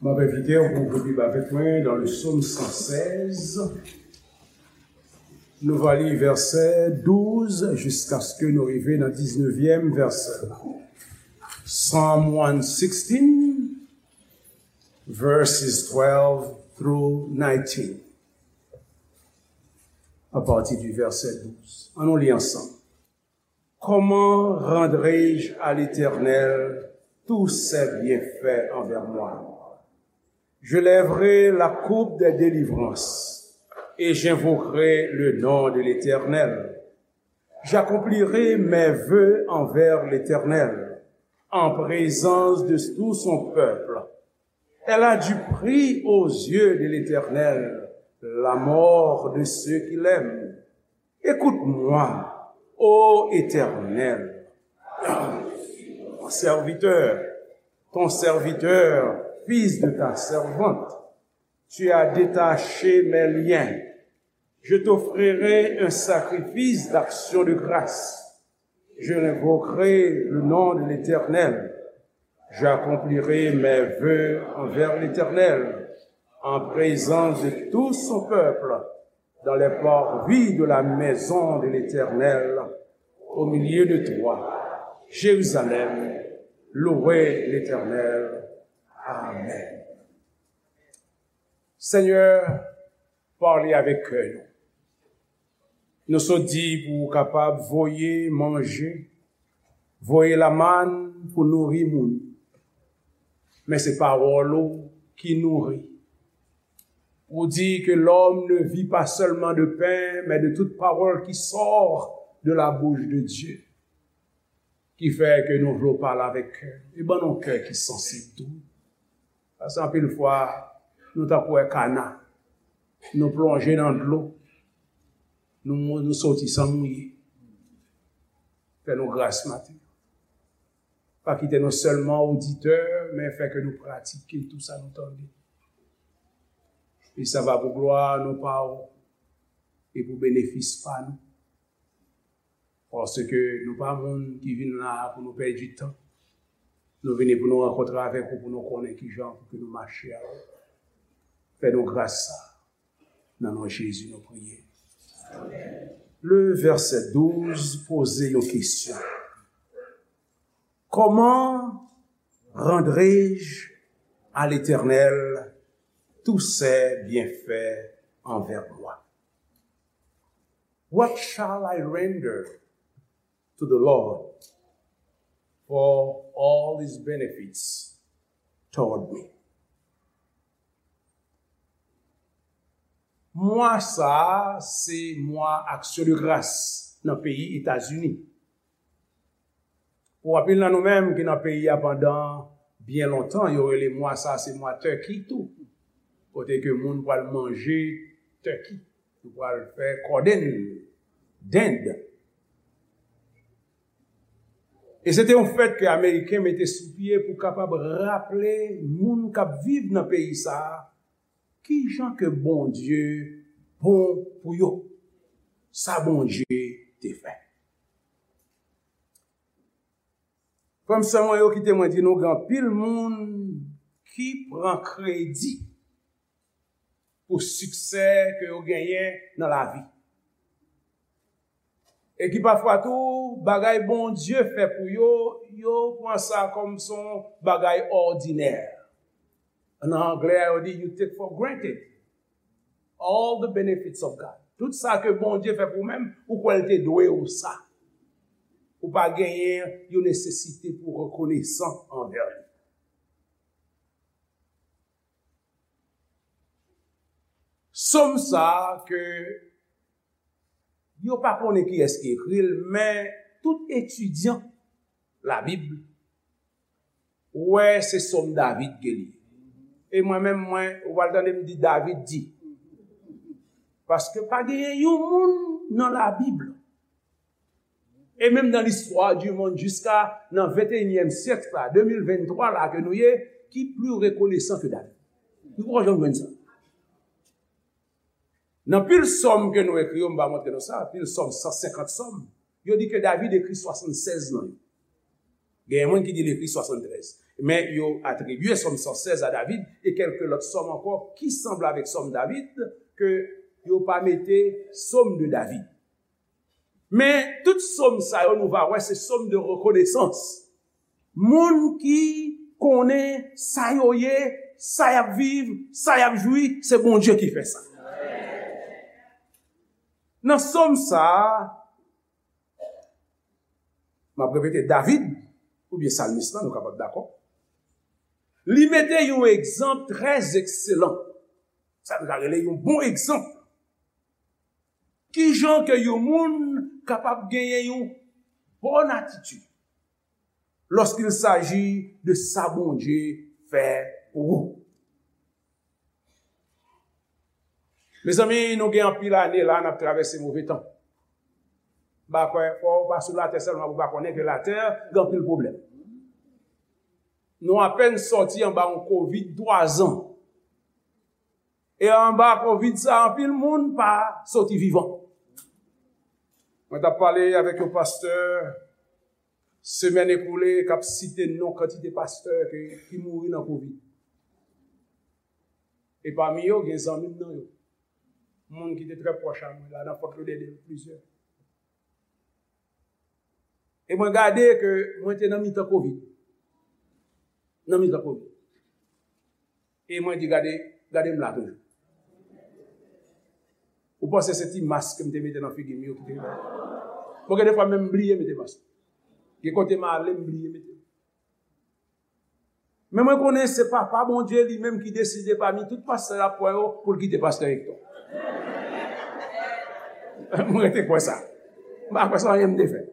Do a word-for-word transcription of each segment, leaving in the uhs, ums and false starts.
M ap envite w pou w ouvri Bib avèk mwen nan le Sòm san sèz. Nou va li vèsè douz jiskaske nou rive nan diznevyèm vèsè. Psalm one sixteen, verses twelve through nineteen. À partir du verset douze. Ann nou li ansanm. Comment rendrai-je à l'Éternel tous ses bienfaits envers moi? Je lèverai la coupe des délivrances et j'invoquerai le nom de l'Éternel. J'accomplirai mes vœux envers l'Éternel, en présence de tout son peuple. Elle a du prix aux yeux de l'Éternel, la mort de ceux qui l'aiment. Écoute-moi, ô Éternel, ton serviteur, ton serviteur, fils de ta servante. Tu as détaché mes liens. Je t'offrirai un sacrifice d'action de grâce. Je invoquerai le nom de l'Éternel. J'accomplirai mes vœux envers l'Éternel, en présence de tout son peuple, dans les parvis de la maison de l'Éternel, au milieu de toi, Jérusalem, louez l'Éternel. Amen. Senyè, pale avèk kè nou. Nou sot di pou w kapab voye manje, voye lamann pou nouri moun. Men se pawòl ou ki nouri. Ou di que l'homme ne vit pas seulement de pain, mais de toute parole qui sort de la bouche de Dieu. Ki fè ke nou vle w pale avèk kè. E ban nou kè ki sansib tou. Paske anpil fwa, nou tankou wè kana. Nou plonje nan dlo. Nou, nou soti san mouye. Fè nou gras maten. Pa kite nou sèlman oditè, men fè ke nou pratike tou sa nou tande. E sa va pou glwa non pa w, e pou benefis pa nou. Paske nou pa moun ki vin la a pou nou pèdi tan. Nou vini pou nou rankontre avèk ou, pou nou konnen kijan pou ke nou mache avè w. Fè nou gras sa. Nan non Jezi nou priye. Le vèsè douz poze yon kesyon. Comment rendrai-je à l'Éternel tous ses bienfaits envers moi? What shall I render to the Lord for all his benefits toward me? Mwa sa a, se mwa aksyon de gras nan peyi Etazini. Pou anpil nan nou menm ki nan peyi a pandan byen lontan, yo rele mwa sa a se mwa turkey tou. Kote ke moun pral manje turkey. Yo pral fè kòdenn, dend. E se te yon fèt ke Ameriken mete sou pye pou kapab raple moun k ap viv nan peyi sa a kijan ke Bondye bon pou yo, sa Bondye te fè. Frè m, sè mwen yo, kite mwen di nou, gen anpil moun ki pran kredi pou siksè ke yo genyen nan lavi. E ki pafwa tou, bagay Bondye fè pou yo, yo pran sa kòm se yon bagay òdinè. Nan anglè a, yo di, you take for granted all the benefits of God. Tout sa ke Bondye fè pou ou menm, ou kwè l te dwe ou sa. Ou pa genyen yon nesesite pou rekonesan anvè li. Sòm sa a ke yo pa konnen kiyès ki ekri l, men tout etidyan Labib wè se Sòm David ke li ye. E mwen menm, mwen, ou pral tande m di David di. Paske pa genyen yon moun nan Labib, e menm nan listwa di monn jiska nan venteyinyèm syèk la, de mil venntwa la ke nou ye, ki pli rekonesan ke David. Nou poko janm jwenn sa. Nan pil sòm ke nou ekri yo, m va montre nou sa, pil sòm, san senkant sòm, yo di ke David ekri swasannsèz nan yo. Genyen moun ki di l ekri swasanntrèz. Men yo atribye Sòm san sèz a David e kèlke lòt sòm ankò ki sanble avèk Sòm David, ke yo pa mete Sòm de David. Men tout sòm sa yo, nou va wè, se sòm de rekonesans. Moun ki konnen sa yo ye, sa y ap viv, sa y ap jwi, se Bondye ki fè sa. Nan sòm sa a, m ap repete, David, oubyen salmis lan, nou kapab dakò, li mete yon egzanp trè ekselan. Sa nou ka rele yon bon egzanp. Kijan ke yon moun kapab genyen yon bòn atitid lorsqu'il s'agit de sa Bondye fè pou ou? Mezanmi, nou gen anpil ane la n ap travèse move tan. M pa kwè, fò w pa sou latè sèlman pou w pa konnen ke latè gen anpil pwoblèm. Nou apèn sòti anba yon kovid twa zan. E anba kovid sa, anpil moun pa soti vivan. Mwen t ap pale avèk yon pastè semèn ekoule k ap site non kantite pastè ke, ki mouri nan kovid. E pami yo, gen zanmi m nan yo. Moun ki te trè pwòch a mwen la, nan Fort Lauderdale, plizyè. E mwen gade ke mwen te nan mitan kovid. Nan mitan kovid. E mwen di, gade, gade m la toujou. Ou panse se ti mas ke m te mete nan figi m yo ki te rive? Bon, gen de fwa menm m bliye mete mas. Gen kote m ale, m bliye mete. Men mwen konnen se Papa Bondye li menm ki deside pami tout pastè l ap pran yo pou l kite pastè Hector. Mwen rete kwè sa. M pa kwè se anyen m te fè.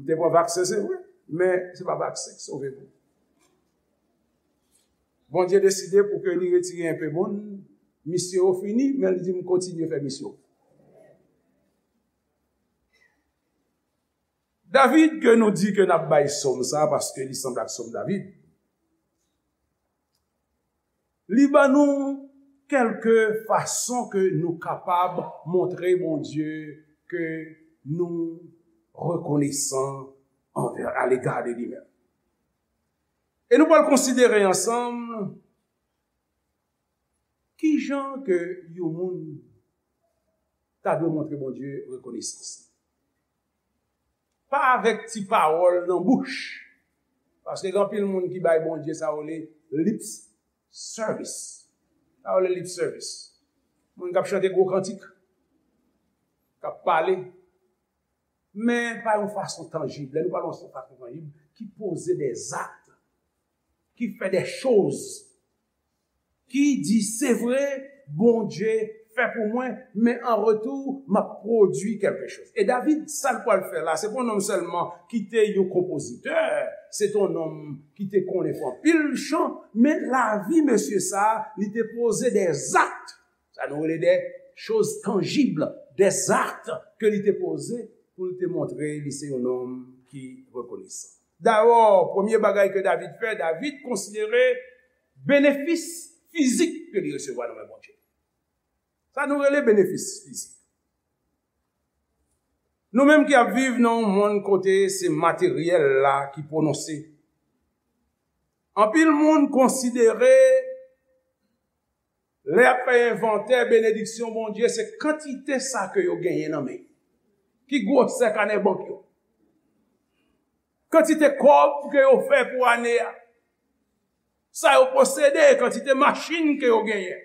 M te pran vaksen, se vre, men se pa vaksen k sove moun. Bondye deside pou ke li retire enpe moun, misyon yo fini, men li di m kontinye fè misyon. David, ke nou di ke n ap bay sòm sa, paske li sanble ak sòm David, li ban nou kèlke fason ke nou kapab montre Bondye ke nou rekonesan anvè, alega de li menm. E nou pral konsidere ansanm kijan ke yon moun ta dwe montre Bondye rekonesans. Pa avèk ti pawòl nan bouch. Paske gen anpil moun ki bay Bondye sa yo rele lip service. Sa yo rele lip service. Moun k ap chante gwo kantik, k ap pale, men pa yon fason tanjib. Lè nou pale yon fason tanjib, ki poze des actes, ki fè des choses, ki di, se vre, Bondye fè pou mwen, men an retou, m ap pwodui kèlke choz. E David, sa l pral fè la, se pa yon nonm sèlman ki te yon konpozitè, se te yon nonm ki te konnen fè anpil chan, men lavi mesye sa a, li te poze des actes. Sa nou rele des choses tangibles, des actes ke li te poze pou l te montre li se yon nonm ki rekonesan. Dabò, premye bagay ke David fè, David konsidere benefis fizik ke li resevwa nan men Bondye. Sa nou rele benefis fizik. Nou menm ki ap viv nan yon monn kote se materyèl la ki pwononse, anpil moun konsidere lè y ap fè envantè benediksyon Bondye, se kantite sa ke yo genyen nan men yo. Ki gwosè kanè bank yo? Kantite kòb ke yo fè pou ane a? Sa yo posede, kantite machin ke yo genyen?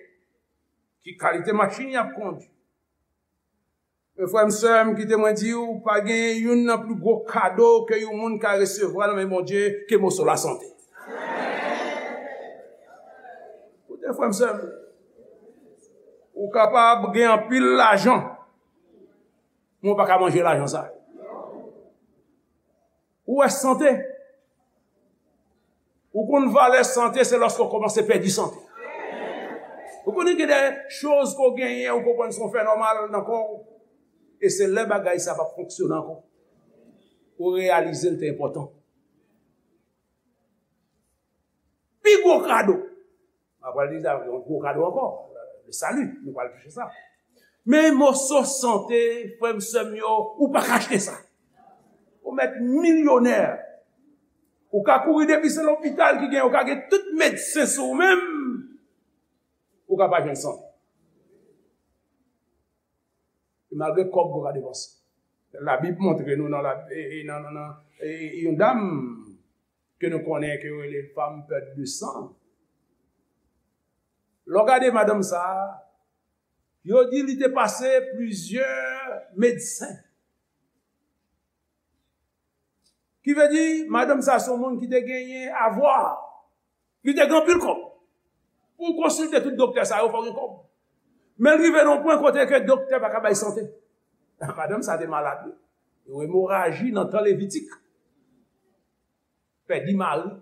Ki kalite machin y ap kondui? Men frè m, sè m, kite mwen di w, pa gen youn nan pli gwo kado ke yon moun ka resevwa nan men Bondye ke moso lasante. Koute frè m, sè m, ou kapab gen anpil lajan, men w pa ka manje lajan sa. Ou wè sante? Ou konn valè sante, se lòske w kòmanse pèdi sante. Ou konnen gen de choz ke w genyen, ou konprann se yon fè nòmal nan kò w. E se lè bagay sa p ap fonksyone ankò, ou reyalize l te enpòtan. Pi gwo kado. M ap pral di sa, yon gwo kado ankò. Le salut, nou pral touche sa. Men moso sante, frè m, sè m yo, ou pa ka achte sa. Ou mèt milyonè. Ou ka kouri depi se lopital ki gen, ou ka gen tout medsen sou ou menm, ou ka pa jwenn sante. E malgre kòb ou ka depanse. Labib montre nou nan, la, e, e, nan, nan, nan e, e, yon dam ke nou konnen ke yo rele femme perte de sang. Lè w gade madanm sa a, yo di li te pase plizyè medsen. Ki vle di, madanm sa se yon moun ki te genyen avwa. Li te gen anpil kòb. Pou w konsilte tout doktè sa yo, fò w gen kòb. Men l rive nan yon pwen kote ke doktè pa ka bay sante. Madanm sa te malad, wi. Yon emoraji nan tan Levitik. Pèdi mari,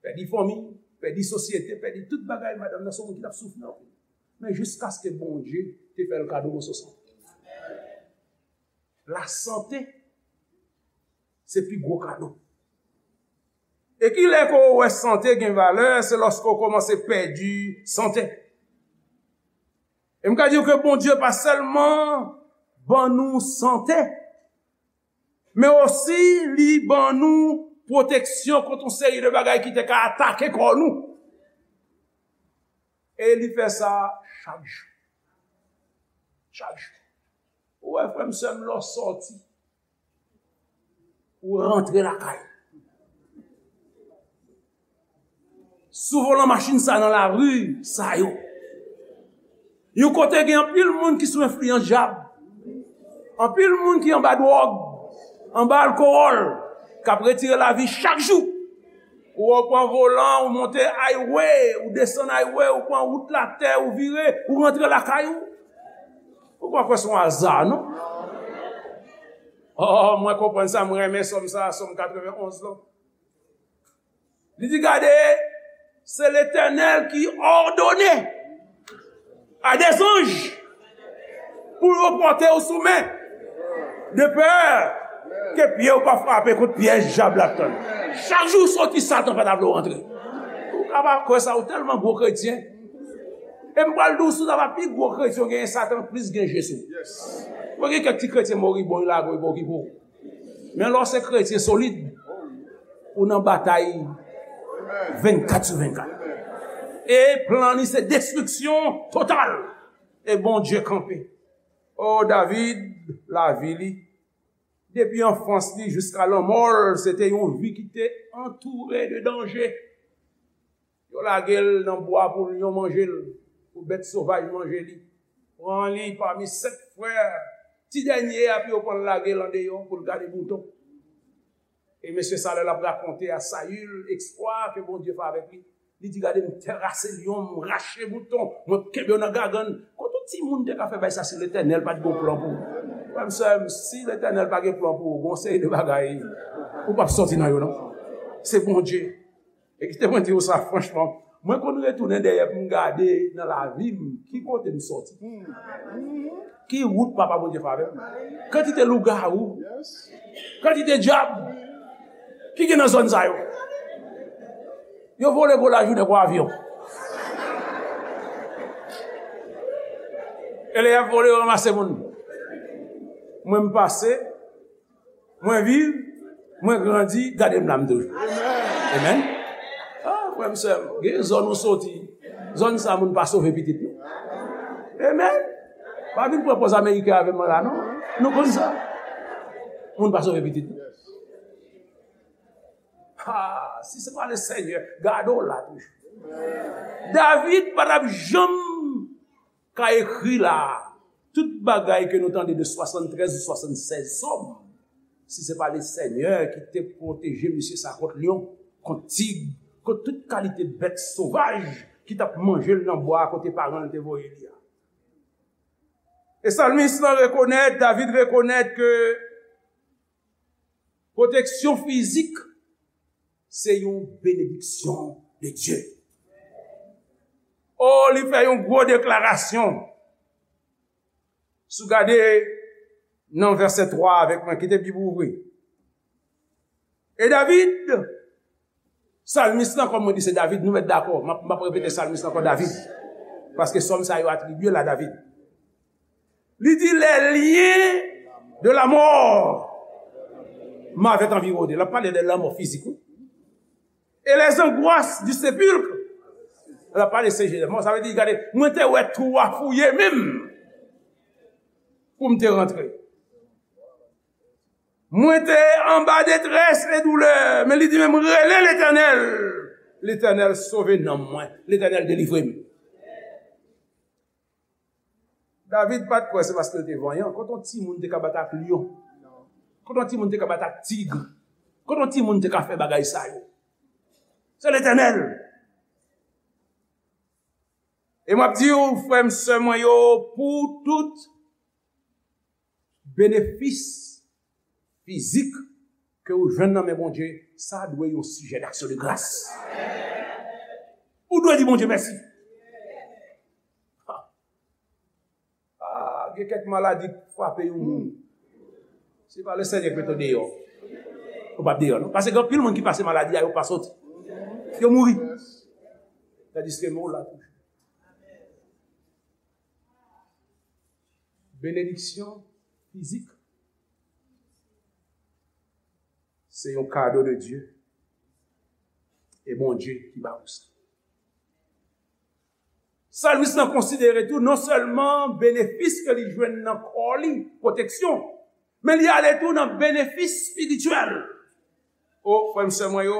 pèdi fanmi, pèdi sosyete, pèdi tout bagay. Madanm nan se yon moun ki t ap soufri anpil. Men jiskaske Bondye te fè l kado moso sante. Lasante, se pi gwo kado. E ki lè ke w wè sante gen valè, se lòske w kòmanse pèdi sante. E m ka di w ke Bondye pa sèlman ban nou sante, men osi li ban nou pwoteksyon kont yon seri de bagay ki te ka atake kò nou. E li fè sa chak jou. Chak jou. Ou wè, frè m, sè m, lè w sòti, ou rantre lakay. Sou volan machin sa nan lari sa yo. Yon kote gen anpil moun ki sou enfliyans dyab. Anpil moun ki anba dwòg, anba alkowòl, k ap retire lavi chak jou. Ou wè w pran volan, ou monte highway, ou desann highway, ou pran wout latè, ou vire, ou rantre lakay ou. Ou pa kwè se yon aza, non? Oh, mwen konprann sa, mwen renmen sòm sa, sòm katrevenn onz lan. Li di, gade, se Letènèl ki òdone a dè zanj pou yo pòte w sou men, de pè ke pye w pa frape kont pyèj dyab la ap tann. Chak jou w soti, Satan pa ta vle w rantre. Ou ka pa kwè sa, ou tèlman gwo kretyen. E m pral di w, si w ta va pi gwo kretyen, w genyen Satan plis gen je sou ou. Mwen gen kèk ti kretyen moribon, yo lage yo pa okipe w. Men lè w se kretyen solid, ou nan batay vennkat sou vennkat. E plan li se destriksyon total. E Bondye kanpe. O David, lavi li, depi anfans li jiska lanmò l, se te yon vi ki te antoure de danje. Yo lage l nan bwa pou lyon manje l, pou bèt sovaj manje li. Pran li pami senk frè, ti dènye a, pou yo pran l lage l andeyò pou l gade mouton. E mesye sa, lè l ap rakonte a Sayil eksplwa ke Bondye fè avèk li, li di, gade, m terase lyon, m rache mouton, mwen kenbe yo nan gagann. Kote yon timoun te ka fè bagay sa si Letènèl pa t gen plan pou ou? Frè m, sè m, si Letènèl pa gen plan pou ou, gon seri de bagay ou p ap sòti nan yo, non. Se Bondye. E kite mwen di w sa franchman, mwen konn retounen dèyè pou m gade nan lavi m ki kote m sòti. Ki wout Papa Bondye fè avè m? Kantite lougawou, kantite dyab ki gen nan zòn sa yo. Yo vole gwo lajounen kon avyon. E lè y ap vole, yo ranmase moun. Mwen, m pase, mwen viv, mwen grandi, gade m la m toujou. Amen. Ah, frè m, sè m, gen zòn ou soti, zòn sa moun pa sove pitit nou. Amen. Pa vin pran pòz ameriken avè m la, non. Nou konn sa. Moun pa sove pitit nou. Ah, si se pa le Senyè, gade w la toujou. David pa t ap janm ka ekri la, tout bagay ke nou tande de swasanntrèz ou swasannsèz sòm, si se pa le Senyè ki te pwoteje mesye sa kont lyon, kont tig, kont tout kalite bèt sovaj ki t ap manje l nan bwa kote paran l te voye li a. E salmis lan rekonèt, David rekonèt ke pwoteksyon fizik se yon benediksyon de Dye. O, li fè yon gwo deklarasyon. Si w gade nan vèsè twa avèk mwen, kite Bib ou ouvri. E David, salmis lan, kòm mwen di se David, nou mèt dakò. M ap, m ap repete salmis lan ankò, David. Paske sòm sa yo atribye l a David. Li di, les liens de la mort m'avaient environné. L ap pale de lanmò fizik, wi. Et les angoisses du sépulcre. L ap pale se Jezè. Bon, sa vle di, gade, mwen te wè twou a fouye menm pou m te rantre. Mwen te anba detrès e doulè, men li di menm rele Letènèl. Letènèl sove nanm mwen. Letènèl delivre m. David pa t kwè se paske l te vanyan. Kote yon timoun te ka bat ak lyon? Kote yon timoun te ka bat ak tig? Kote yon timoun te ka fè bagay sa yo? Se Letènèl. E m ap di w, frè m, sè mwen yo, pou tout benefis fizik ke ou jwenn nan men Bondye, sa dwe yon sijè d'action de grâce. Ou dwe di Bondye mèsi. Ah, gen kèk maladi k frape yon moun. Se pa Lesenyè k mete w deyò. Ou p ap deyò, non. Paske gen anpil moun ki pase maladi a, yo pa soti. Yo mouri. Tandiske men w la toujou. Benediksyon fizik. Se yon kado de Dye. E Bondye ki ba ou sa. Salmis lan konsidere tou non sèlman benefis ke li jwenn nan kò li, pwoteksyon, men li ale tou nan benefis espirityèl. O, frè m, sè mwen yo,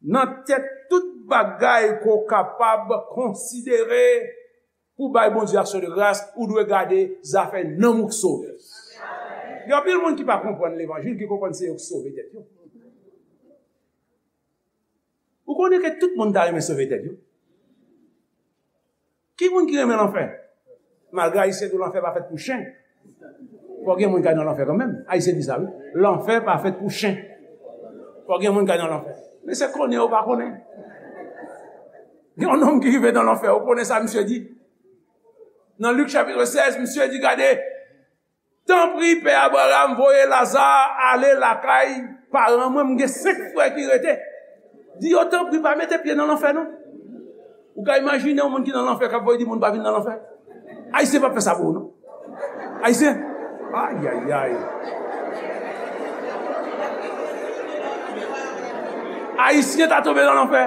nan tèt tout bagay ke w kapab konsidere pou bay Bondye aksyon de gras, ou dwe gade zafè nanm ou k sove. Gen anpil moun ki pa konprann levanjil, ki konprann se yo k sove tèt yo. Ou konnen ke tout moun ta renmen sove tèt yo? Ki moun ki renmen lanfè? Malgre Ayisyen di w lanfè pa fèt pou chen, fò gen moun k al nan lanfè kanmenm. Ayisyen di sa, wi. Lanfè pa fèt pou chen. Fò gen moun k al nan lanfè. Men se konnen ou pa konnen. Gen yon nonm ki rive nan lanfè, ou konnen sa misye di? Nan Lik chapit sèz, misye di, gade, tanpri, Pè Abraram, voye Laza ale lakay paran mwen, m gen senk frè ki rete. Di yo, tanpri, pa mete pye nan lanfè, non. Ou ka imajine yon moun ki nan lanfè k ap voye di moun pa vin nan lanfè? Ayisyen p ap fè sa pou ou, non. Ayisyen? Ayayay. Ayisyen ta tonbe nan lanfè.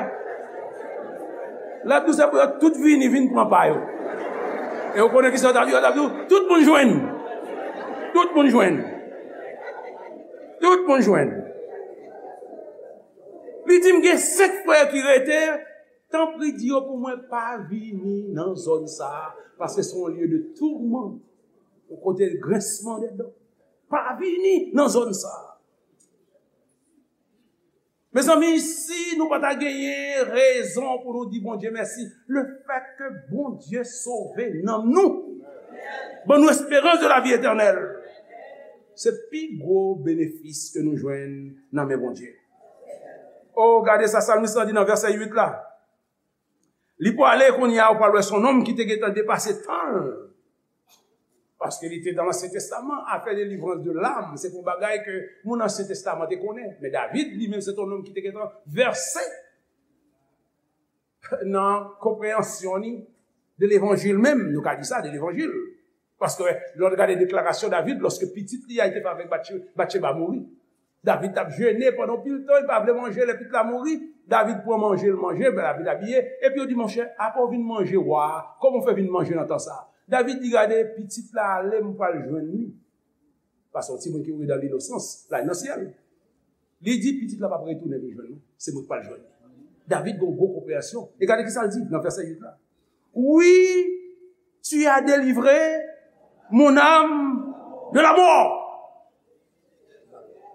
L ap di w se pou yo tout vini, vin pran pa yo. E ou konnen ki sa yo t ap di? Yo t ap di w, tout moun jwenn. Tout moun jwenn. Tout moun jwenn. Li di, m gen senk frè ki rete, tanpri di yo pou mwen pa vini nan zòn sa a, paske se yon lye de tourment, yon kote grensman dè dan. Pa vini nan zòn sa a. Mezanmi, si nou pa ta genyen rezon pou nou di Bondye mèsi, le fèt ke Bondye sove nanm nou, ban nou esperans de la vi etènèl, se pi gwo benefis ke nou jwenn nan men Bondye. O, gade sa salmis lan di nan vèsè uit la. Li pwale kounye a, ou pral wè se yon nonm ki te gentan depase tan l. Paske li te nan Ansyen Testaman, afè delivrans de lam, se te yon bagay ke moun Ansyen Testaman te konnen. Men David, li menm, se te yon nonm ki te gentan vèse nan konpreyansyon li de levanjil menm, nou ka di sa, de levanjil. Paske lè w gade deklarasyon David, lòske pitit li a te fè avèk Batche-, Batcheba mouri, David t ap jene pandan yon pil tan, li pa vle manje, lè pitit la mouri, David pran manje, l manje, ben David abiye, epi yo di, monchè, apre w vin manje wa a, kòman w fè vin manje nan tan sa a? David di, gade, pitit la ale, m pral jwenn li. Paske yon timoun ki mouri dan linosans, l al nan syèl. Li di, pitit la p ap retounen vin jwenn mwen, se mwen k pral jwenn li. David gen yon gwo konpreyansyon. E gade ki sa l di nan vèsè uit la. Oui, tu as délivré mon âme de la mort.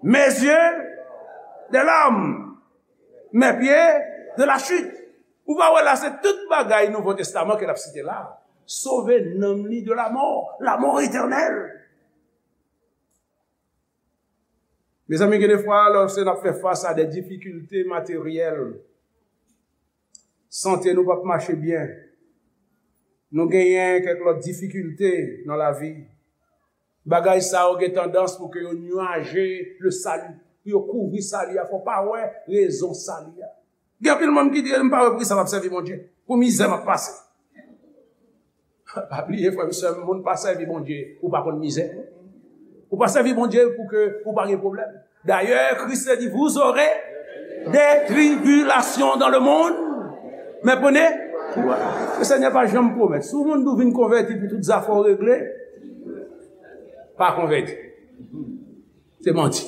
Mes yeux des larmes, mes pieds de la chute. Ou pa wè la, se tout bagay Nouvo Testaman ke l ap site la. Sove nanm li de la mort, la mort éternelle. Mezanmi, gen de fwa, lòske n ap fè fas a de difikilte materyèl, sante nou p ap mache byen, nou genyen kèk lòt difikilte nan lavi, bagay sa yo gen tandans pou ke yo nwaje le sali, pou yo kouvri sali a, fò w pa wè rezon sali a. Gen anpil moun ki di, m pa wè poukisa m ap sèvi Bondye, pou mizè m ap pase. Pa bliye, frè m, sè m, moun pa sèvi Bondye pou pa konn mizè. Ou pa sèvi Bondye pou ke ou pa gen pwoblèm. Dayè, Kris te di, vous aurez Des tribulations dans le monde, mais prenez courage. Le Seigneur pa janm pwomèt. Si yon moun di w vin konvèti pou tout zafè w regle, pa konvèti. Se manti.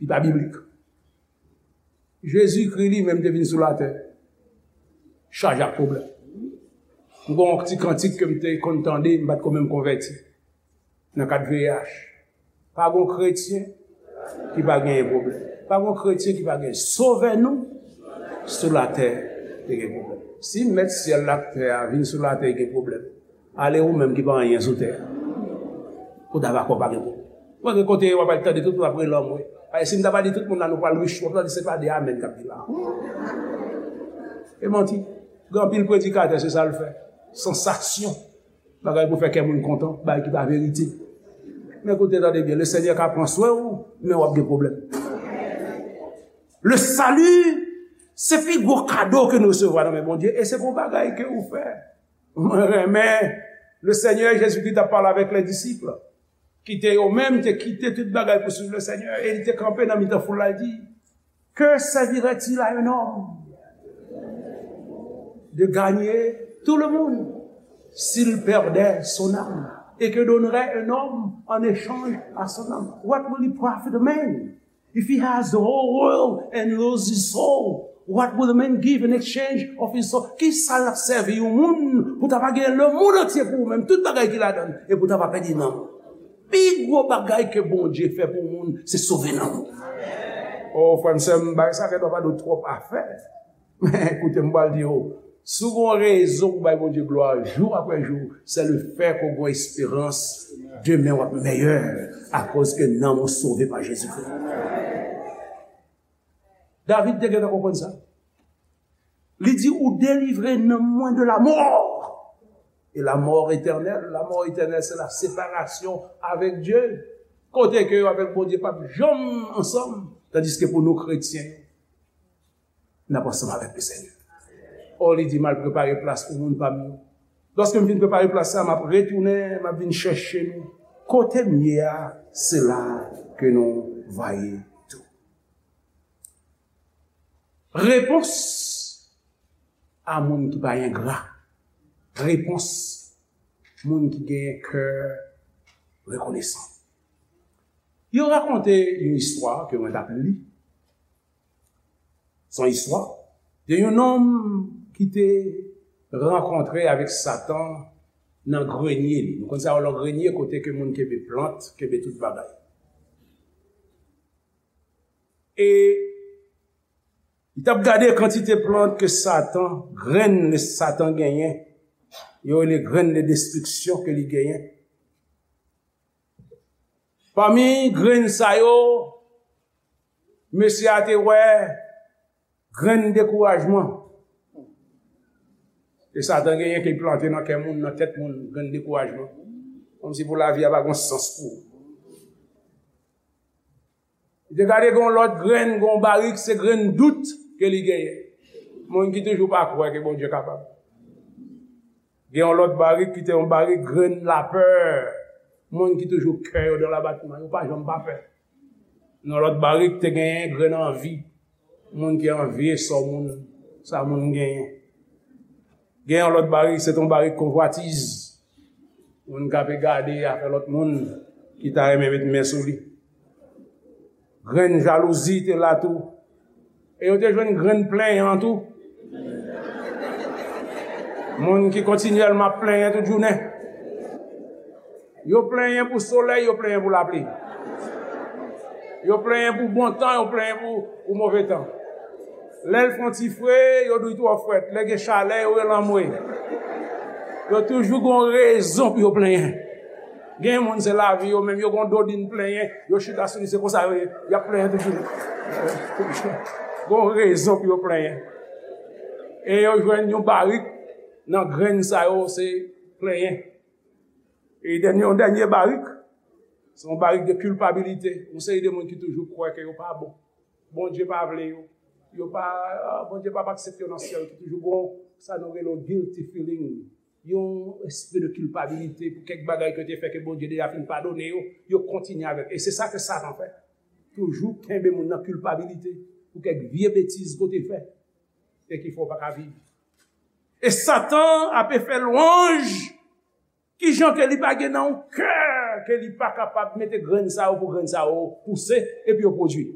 Li pa biblik. Jezikri li menm te vin sou latè chaje ak pwoblèm. M gon ti kantik ke m te konn tande, m pa t ko menm konvèti nan kad V I H. Pa gon kretyen ki pa genyen pwoblèm. Pa gon kretyen ki pa genyen. Sovè nou sou latè te gen pwoblèm. Si mèt syèl la ak tè a vin sou latè gen pwoblèm, ale ou menm ki pa anyen sou tè a. Ou ta va kwè pa gen pwoblèm. Mwen gen kote w ap al tande tout moun ap rele anmwe. Ay, si m ta va di tout moun la nou pral rich, w ap tande se pa de amèn k ap di la. E manti. Gen anpil predikatè se sa l fè. Sansasyon. Bagay pou fè kè moun kontan, bagay ki pa verite. Men koute tande byen, Lesenyè ka pran swen w, men w ap gen pwoblèm. Le salut, se pi gwo kado ke nou resevwa nan men Bondye, e se pou bagay ke ou fè. Mwen renmen, Lesenyè Jezikri t ap pale avèk lè disip, ki te yo menm te kite tout bagay pou swiv Lesenyè, e li te kanpe nan mitan foul la, li di, Que servirait-il à un homme de gagner tout le monde s'il perdait son âme? Et que donnerait un homme en échange à son âme? What will it profit a man if he has the whole world and lose his soul? What will a man give in exchange of his soul? Ki sa l ap sèvi yon moun pou ta pa gen lemonn antye pou ou menm, tout bagay ki ladan l, e pou ta pa pèdi nanm? Pi gwo bagay ke Bondye fè pou moun, se sove nanm ou. O, frè m, sè m, bagay sa gen dwa pa de twòp afè. Men, koute m pral di w, si w gon rezon pou bay Bondye glwa jou apre jou, se le fè ke w gon esperans demen w ap mèyè akoz ke nanm ou sove pa Jezikri. David te gentan konprann sa. Li di, ou delivre nanm mwen de la mort. E la mort éternelle, la mort éternelle, c'est la séparation avec Dieu. Kote ke yo avèk Bondye p ap janm ansanm, tandiske pou nou kretyen, n ap ansanm avèk Lesenyè. O, li di, m al prepare plas pou moun pa m yo. Lòske m fin prepare plas sa, m ap retounen, m ap vin chèche nou. Kote m ye a, se la ke nou va ye tou. Repons a moun ki pa engra. Repons moun ki gen kè rekonesan. Yo rakonte yon istwa ke mwen t ap li. Se yon istwa de yon nonm ki te rankontre avèk Satan nan grenye li. Nou konn sa yo nan grenye kote ke moun kenbe plant, kenbe tout bagay. E li t ap gade kantite plant ke Satan, grenn le Satan genyen, yo rele grenn de destriksyon ke li genyen. Pami grenn sa yo, mesye a te wè grenn dekourajman. E Satan genyen ke l plante nan kè moun, nan tèt moun, grenn dekourajman. Kòmsi pou lavi a pa gon sans pou ou. Li te gade gon lòt grenn, gon barik, se grenn dout ke li genyen. Moun ki toujou pa kwè ke Bondye kapab. Gen yon lòt barik ki te yon barik grenn lapè. Moun ki toujou kè yo nan labatman, yo pa janm pa pè. Nan lòt barik te genyen grenn anvi. Moun ki anvi sa moun, sa moun genyen. Gen yon lòt barik, se te yon barik konvwatiz. Moun k ape gade afè lòt moun ki ta renmen met men sou li. Grenn jalouzi te la tou. E yo te jwenn grenn plenyan tou. Moun ki kontinyèlman ap plenyen tout jounen. Yo plenyen pou solèy, yo plenyen pou lapli. Yo plenyen pou bon tan, yo plenyen pou, pou move tan. Lè l fè yon ti fre, yo di l twò frèt. Lè gen chalè, yo rele anmwe. Yo toujou gon rezon pou yo plenyen. Gen moun se lavi yo menm, yo gon dodin plenyen, yo chita sou li, se konsa yo ye, y ap plenyen toujou. Gon rezon pou yo plenyen. E yo jwenn yon barik nan grenn sa yo, se plenyen. E dènye, yon dènye barik, se yon barik de kilpabilite. Yon seri de moun ki toujou kwè ke yo pa bon. Bondye pa vle yo. Yo pa, Bondye p ap aksepte yo nan syèl. Ki toujou gon sa nou rele yon guilty feeling. Yon espri de kilpabilite pou kèk bagay ke yo te fè ke Bondye deja fin padone yo. Yo kontinye avèk. E se sa ke Satan fè. Toujou kenbe moun nan kilpabilite. pou kèk vye betiz ke w te fè e ki fè w pa ka viv. E Satan ape fè lwanj kijan ke li pa gen nan yon kè ke li pa kapab mete grenn sa yo pou grenn sa yo pouse epi yo pwodui.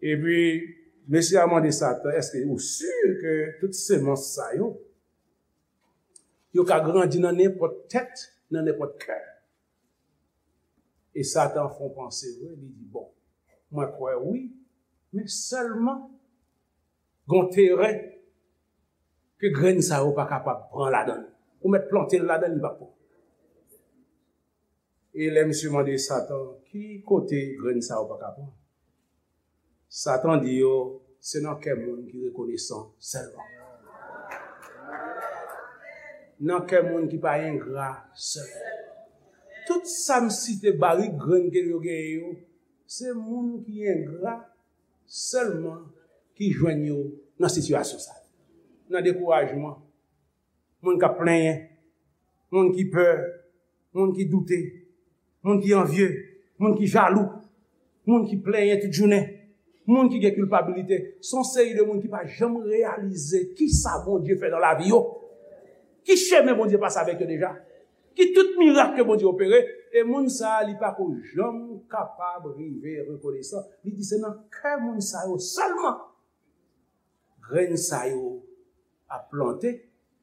Epi, mesye a mande Satan, èske ou si ke tout semans sa yo, yo ka grandi nan nenpòt tèt, nan nenpòt kè? E Satan fè yon panse vre, li di, bon, mwen kwè wi, men sèlman gon teren ke grenn sa yo pa kapab pran ladan l. Ou mèt plante l ladan l, li p ap pran. E lè misye mande Satan, ki kote grenn sa yo pa ka pran? Satan di yo, se nan kè moun ki rekonesan sèlman. Nan kè moun ki pa engra sèlman. Tout sa m site, barik grenn ke yo genyen yo, se moun ki engra sèlman ki jwenn yo nan sitiyasyon sa yo. Nan dekourajman, moun k ap plenyen, moun ki pè, moun ki doute, moun ki anvye, moun ki jalou, moun ki plenyen tout jounen, moun ki gen kilpabilite. Se yon seri de moun ki pa janm reyalize kisa Bondye fè nan lavi yo, ki chemen Bondye pase avèk yo deja, ki tout mirak ke Bondye opere, e moun sa a, li pa ko janm kapab rive rekonesan. Li di se nan kè moun sa yo sèlman grenn sa yo ap plante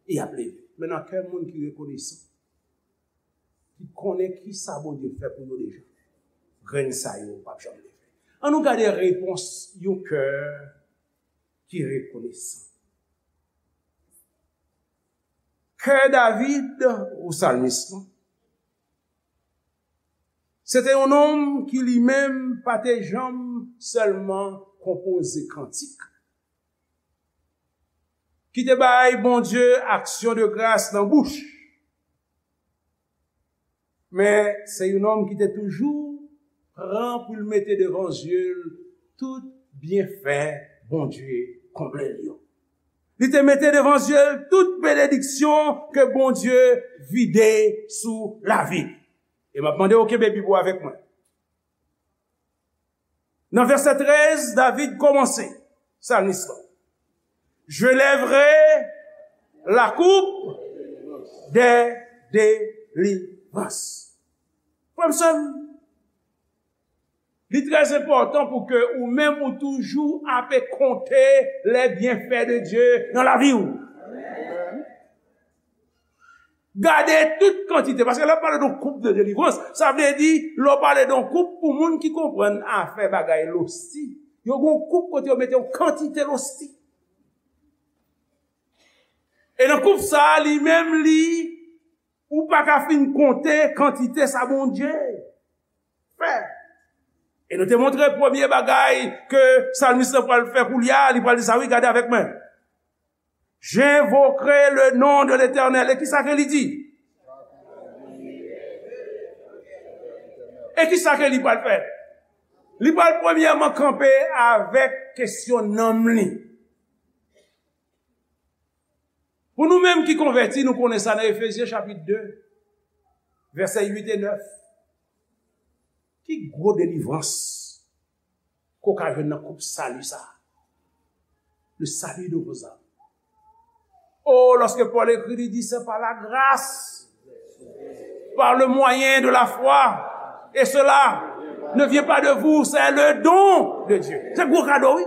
e ap leve. Men nan kè moun ki rekonesan, ki konnen kisa Bondye fè pou yo deja, grenn sa yo p ap janm leve. Ann nou gade repons yon kè ki rekonesan. Kè David, ou salmis lan, se te yon nonm ki li menm pa te janm sèlman konpoze kantik, ki te bay Bondye aksyon de gras nan bouch, men se yon nonm ki te toujou pran pou l mete devan zye l tout byenfè Bondye konble l yo. Li te mete devan zye l tout benediksyon ke Bondye vide sou lavi l. E m ap mande w kenbe Bib ou avèk mwen. Nan vèsè trèz, David kòmanse, salmis lan. Je lèverai la coupe des délivrances. Frè m, sè m, li trè enpòtan pou ke ou menm ou toujou ape konte les bienfaits de Dieu nan lavi w. Gade tout kantite, paske lè w pale de yon koup de delivrans, sa vle di, lè w pale de yon koup pou moun ki konprann afè bagay losti, yo gen yon koup kote yo mete yon kantite losti. E nan koup sa a, li menm li, ou pa ka fin konte kantite sa Bondye fè. E nou te montre premye bagay ke salmis lan pral fè koulye a, li pral di sa, wi, gade avèk mwen. J'invoquerai le nom de l'Éternel. E kisa ke li di? E kisa ke li pral fè? Li pral premyèman kanpe avèk kesyon nanm li. Pou nou menm ki konvèti, nou konnen sa nan Efezyen chapit de, vèsè uit e nèf. Ki gwo delivrans ke w ka jwenn nan koup sali sa a? Le salut de vos âmes. Oh, lorsque Paul écrit, il dit, c'est par la grâce, par le moyen de la foi, et cela ne vient pas de vous, c'est le don de Dieu. Se gwo kado, wi.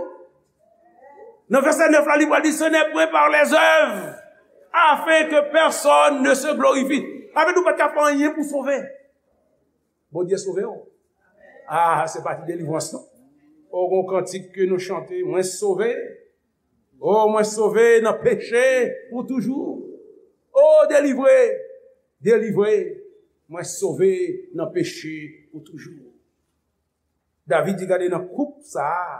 Nan vèsè nèf la, li pral di, ce n'est point par les œuvres, afin que personne ne se glorifie. Sa vle di ou pa t ka fè anyen pou sove. Bondye sove w. Ah, se pa ti delivrans non. O, gon kantik ke nou chante, mwen sove. O, mwen sove nan peche pou toujou. O, delivre, delivre, mwen sove nan peche pou toujou. David di, gade nan koup sa a,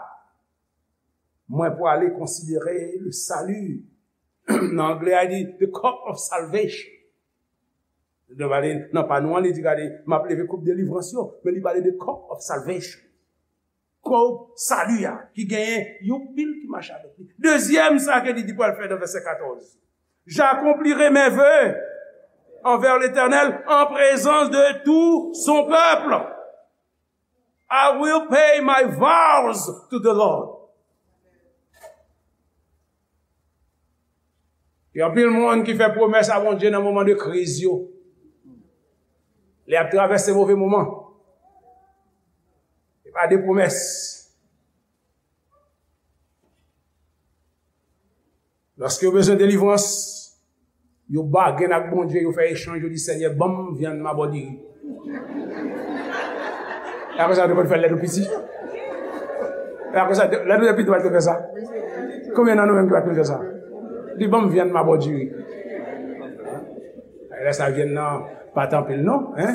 mwen pwale konsidere le salut. Nan anglè a, li di, the cup of salvation. Li pale, nan pa nou an, li di, gade, m ap leve koup delivrans yo, men li pale de cup of salvation. Koup sali a, ki genyen yon pil ki mache avèk li. Dezyèm, sa ke li di pral fè nan vèsè katòz. J'accomplirai mes vœux envers l'Éternel en présence de tout son peuple. I will pay my vows to the Lord. Gen anpil moun ki fè pwomès a Bondye nan moman de kriz yo. Lè y ap travèse move moman. Se pa de pwomès. Lòske yo bezwen delivrans, yo bagen ak Bondye, yo fè echanj, yo di, Senyè, ban m vyann m a bò diri. E apre sa, yo te konn fè l lè nou piti. E apre sa, lè nou te piti, nou pa t konn fè sa. Konbyen nan nou menm ki pa t konn fè sa? Di, ban m vyann m a bò diri. Lè sa vyann nan pa t anpil non, en?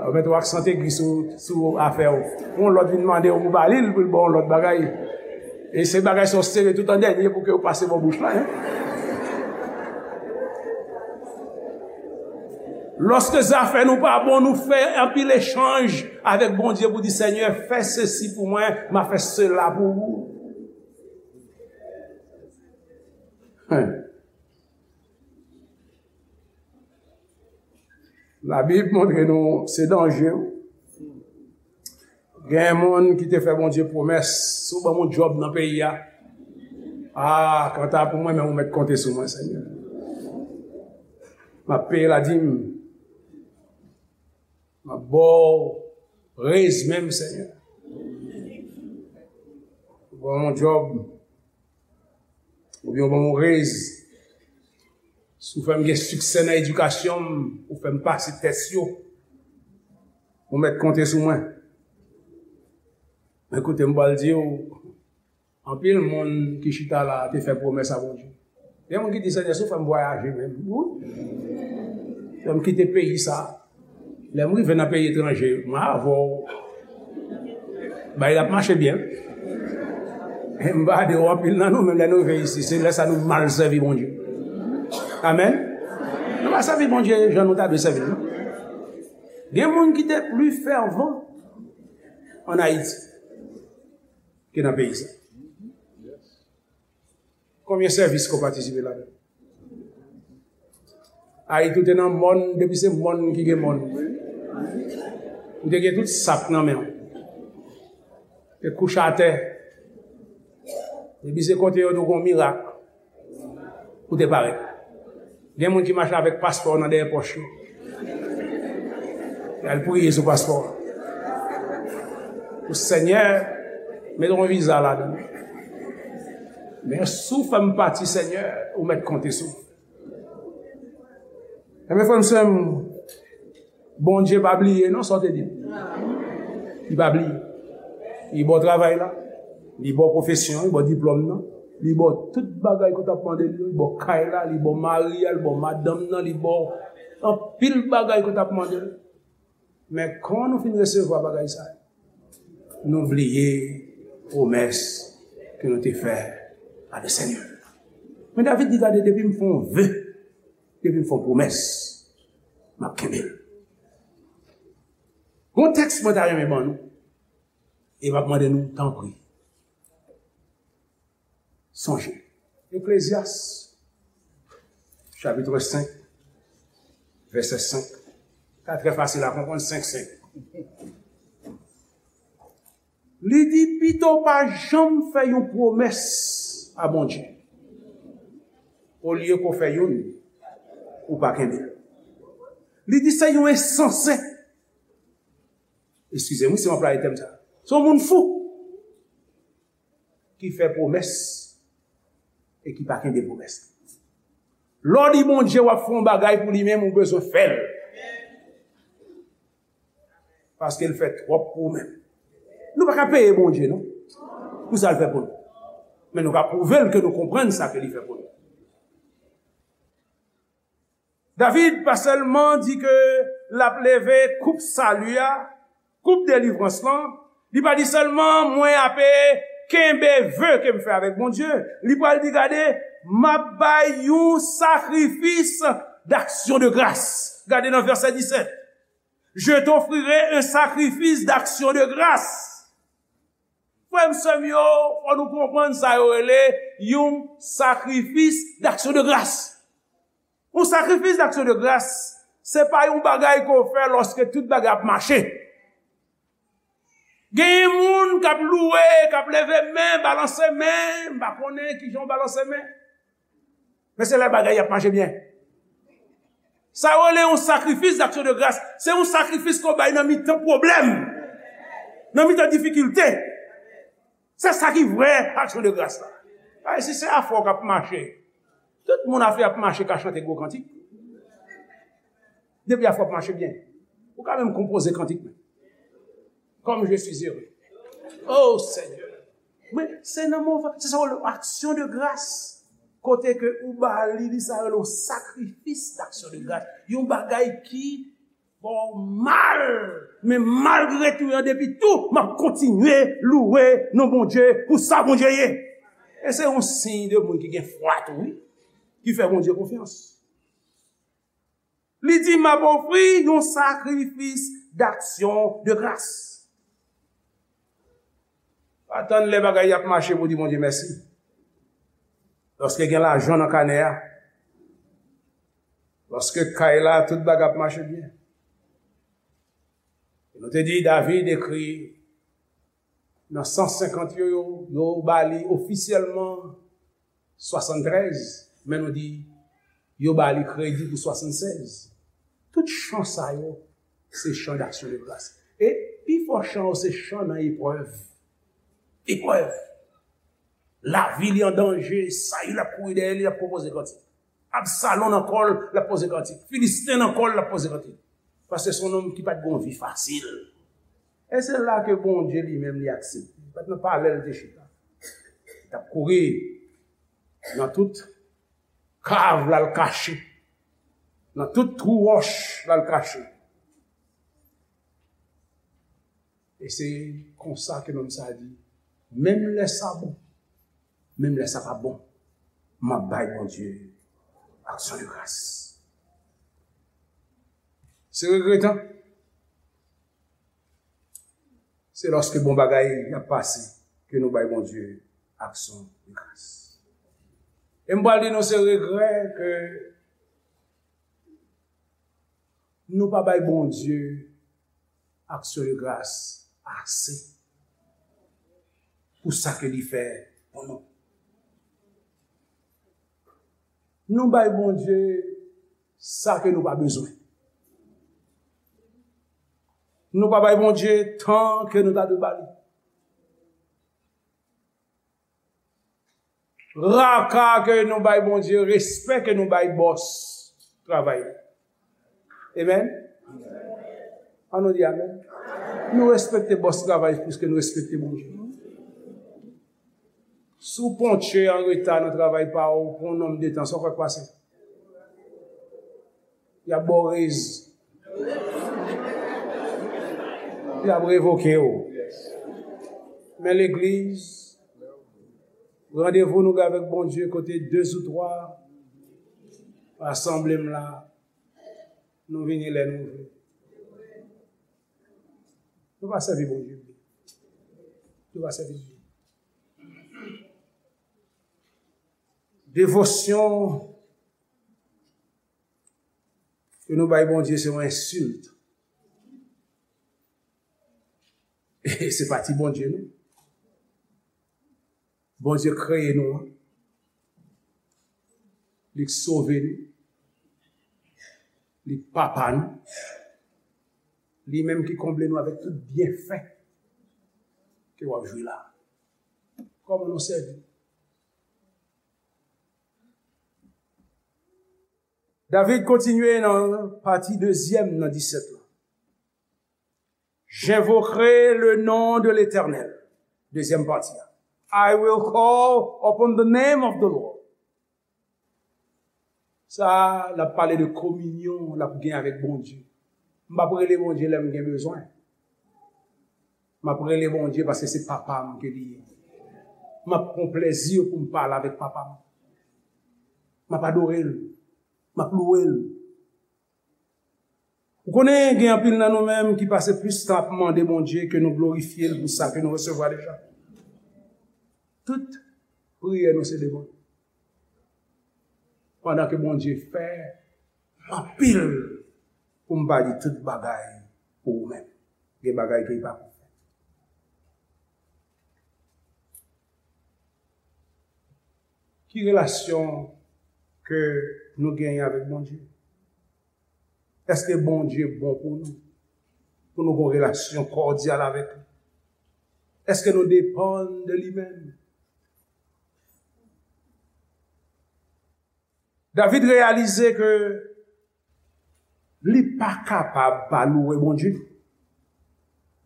Ou mete yon aksan egi sou, sou afè w. Yon lòt vin mande w pou ba li l, pou l ba w yon lòt bagay. E se bagay sa w sere tout an dènye pou ke w pase bò bouch la, en? Lòske zafè nou pa bon, nou fè anpil echanj avèk Bondye pou di, Senyè, fè sesi pou mwen, m a fè sela pou ou. Hein. Labib montre nou se danje. Gen moun ki te fè Bondye pwomès, si w ban m yon djòb nan peyi a, a, kanta pou mwen menm, ou mèt konte sou mwen, Senyè. M ap peye ladim. M ap ba w rez menm, Senyè. Ou ban m yon djòb, oubyen ou ban m yon rez. Si w fè m gen siksè nan edikasyon m, ou fè m pase tès yo, ou mèt konte sou mwen. Men koute m pral di w, anpil moun ki chita la a te fè pwomès a Bondye. Gen moun ki di, Senyè, si w fè m vwayaje menm, wi. Fè m kite peyi sa a. Lè m rive nan peyi etranje, mwen avè w. Bagay la ap mache byen. E m pa di w anpil nan nou, menm lè nou rive isi, se lè sa nou mal sèvi Bondye. Amèn. Nou pa sèvi Bondye jan nou ta dwe sèvi l, non. Gen moun ki te pli fèvan ann Ayiti ke nan peyi sa. Konbyen sèvis ke w patisipe ladan l? Ayiti, ou te nan mòn, depi se mòn ki gen mòn. Ou te gen tout sak nan men w. Te kouche atè. Depi se kote yo di w gen yon mirak, ou te parèt. Gen moun ki mache avèk paspò nan dèyè pòch yo. Y al priye sou paspò a. Pou Senyè, mete yon viza ladan l. Men si w fè m pati, Senyè, ou mèt konte sou mwen. Enben, frè m, sè m, Bondye pa bliye non sa w te di l. Li pa bliye. Li ba w travay la. Li ba w pwofesyon, li ba w diplòm nan. Li ba w tout bagay ke w t ap mande l yo. Li ba w kay la, li ba w mari a, li ba w madanm nan, li ba w anpil bagay ke w t ap mande l. Men kan nou fin resevwa bagay sa yo, nou bliye pwomès ke nou te fè a Lesenyè. Men David di, gade, depi m fè yon ve, depi m fè yon pwomès, m ap kenbe l. Gon tèks mwen ta renmen ban nou, e m ap mande nou, tanpri, sonje. Eklezyas, chapit senk, vèsè senk. Sa trè fasil a konprann, senk senk. Li di, pito w pa janm fè yon pwomès a Bondye, olye ke w fè youn, ou pa kenbe l. Li di, se yon ensanse. Eskize m, wi, si m anplwaye tèm sa. Se yon moun fou ki fè pwomès e ki pa kenbe pwomès li. Lè w di Bondye w ap fè yon bagay pou li menm, ou bezwen fè l. Paske l fè twòp pou ou menm. Nou pa ka peye Bondye, non, pou sa l fè pou nou. Men nou ka pwouve l ke nou konprann sa ke li fè pou nou. David pa sèlman di ke l ap leve koup sali a, koup delivrans lan, li pa di sèlman, mwen ape kenbe ve ke m fè avèk Bondye. Li pral di, gade, m ap bay yon sakrifis d'action de grâce. Gade nan vèsè disèt. Je t'offrirai un sacrifice d'action de grâce. Frè m, sè m yo, fò nou konprann sa yo rele yon sakrifis d'action de grâce. Yon sakrifis d'action de grâce, se pa yon bagay ke w fè lòske tout bagay ap mache. Genyen moun k ap louwe, k ap leve men, balanse men, m pa konnen kijan w balanse men. Men se lè bagay y ap mache byen. Sa yo rele yon sakrifis d'action de grâce. Se yon sakrifis ke w bay nan mitan pwoblèm, nan mitan difikilte. Se sa ki vrè aksyon de gras la. Ay, si se afè w k ap mache, tout moun afè ap mache ka chante gwo kantik. Depi afè w ap mache byen, ou ka menm konpoze kantik menm. Comme je suis heureux. Oh Seigneur. Men se nan moman, se sa w rele aksyon de gras. Kote ke ou ba li, li sa rele yon sakrifis d'action de grâce. Yon bagay ki fè w mal. Men malgre tou, an depi tou, m ap kontinye louwe non Bondye pou sa Bondye ye. E se yon siy de moun ki gen fwa tou, wi, ki fè Bondye konfyans. Li di, "M ap ofri yon sakrifis d'action de grâce." Pa tann lè bagay y ap mache pou di Bondye mèsi. Lòske gen lajan nan kanè a, lòske kay la, tout bagay ap mache byen. Nou te di David ekri nan san senkant yo, yo, yo ba li ofisyèlman swasanntrèz, men nou di yo ba li kredi pou swasannsèz. Tout chan sa yo, se chan d'action de grâce. E pi fò chan yo, se chan nan eprèv. Eprèv. Lavi li an danje, Sayil ap kouri dèyè li, l ap konpoze kantik. Absalon nan kò l, l ap poze kantik. Filisten nan kò l, l ap poze kantik. Paske se yon nonm ki pa t gen yon vi fasil. E se la ke Bondye li menm li aksepte. Li pa t nan palè l te chita. Li t ap kouri nan tout kav l al kache. Nan tout twou wòch l al kache. E se konsa ke nonm sa a di, menm lè sa bon, menm lè sa pa bon, m ap bay Bondye aksyon de gras. Se regretan. Se lòske bon bagay ap pase ke nou bay Bondye aksyon de gras. E m pral di nou se regrè ke nou pa bay Bondye aksyon de gras ase pou sa ke li fè pou nou. Nou bay Bondye sa ke nou pa bezwen. Nou pa bay Bondye tan ke nou ta dwe ba li. Raka ke nou bay Bondye, respè ke nou bay bòs travay li. Amen. An nou di amen. Nou respekte bòs travay plis ke nou respekte Bondye. Si w ponktyè an reta nan travay pa w pou yon nonm de tan, sa w kwè k pase? Y ap ba w rez. Y ap revoke w. Men legliz, randevou nou gen avèk Bondye kote de ou twa rasanble m la, nou vini lè nou vle. Nou pa sèvi Bondye byen. Nou pa sèvi l byen. Devosyon ke nou bay Bondye se yon ensilt. E se pa ti Bondye, non. Bondye kreye nou an. Li k sove nou. Li k papa nou. Li menm ki konble nou avèk tout byenfè ke w ap jwi la. Kòman nou sèvi? David kontinye nan pati dezyèm nan disèt la. J'invoquerai le nom de l'Éternel. Dezyèm pati a. I will call upon the name of the Lord. Sa a, l ap pale de kominyon l ap gen avèk Bondye. M p ap rele Bondye lè m gen bezwen. M ap rele Bondye paske se papa m ke li ye. M ap pran plezi pou m pale avèk papa m. M ap adore l. M ap louwe l. Ou konnen, gen anpil nan nou menm ki pase plis tan ap mande Bondye ke nou glorifye l pou sa ke nou resevwa deja. Tout priyè nou se devan l. Pandan ke Bondye fè anpil, pou m pa di tout bagay pou ou menm. Gen bagay ke li pa pou fè. Ki relasyon ke nou genyen avèk Bondye? Èske Bondye bon pou nou? Pou nou gen yon relasyon kòdyal avèk li? Èske nou depann de li menm? David reyalize ke li pa kapab pa louwe Bondye.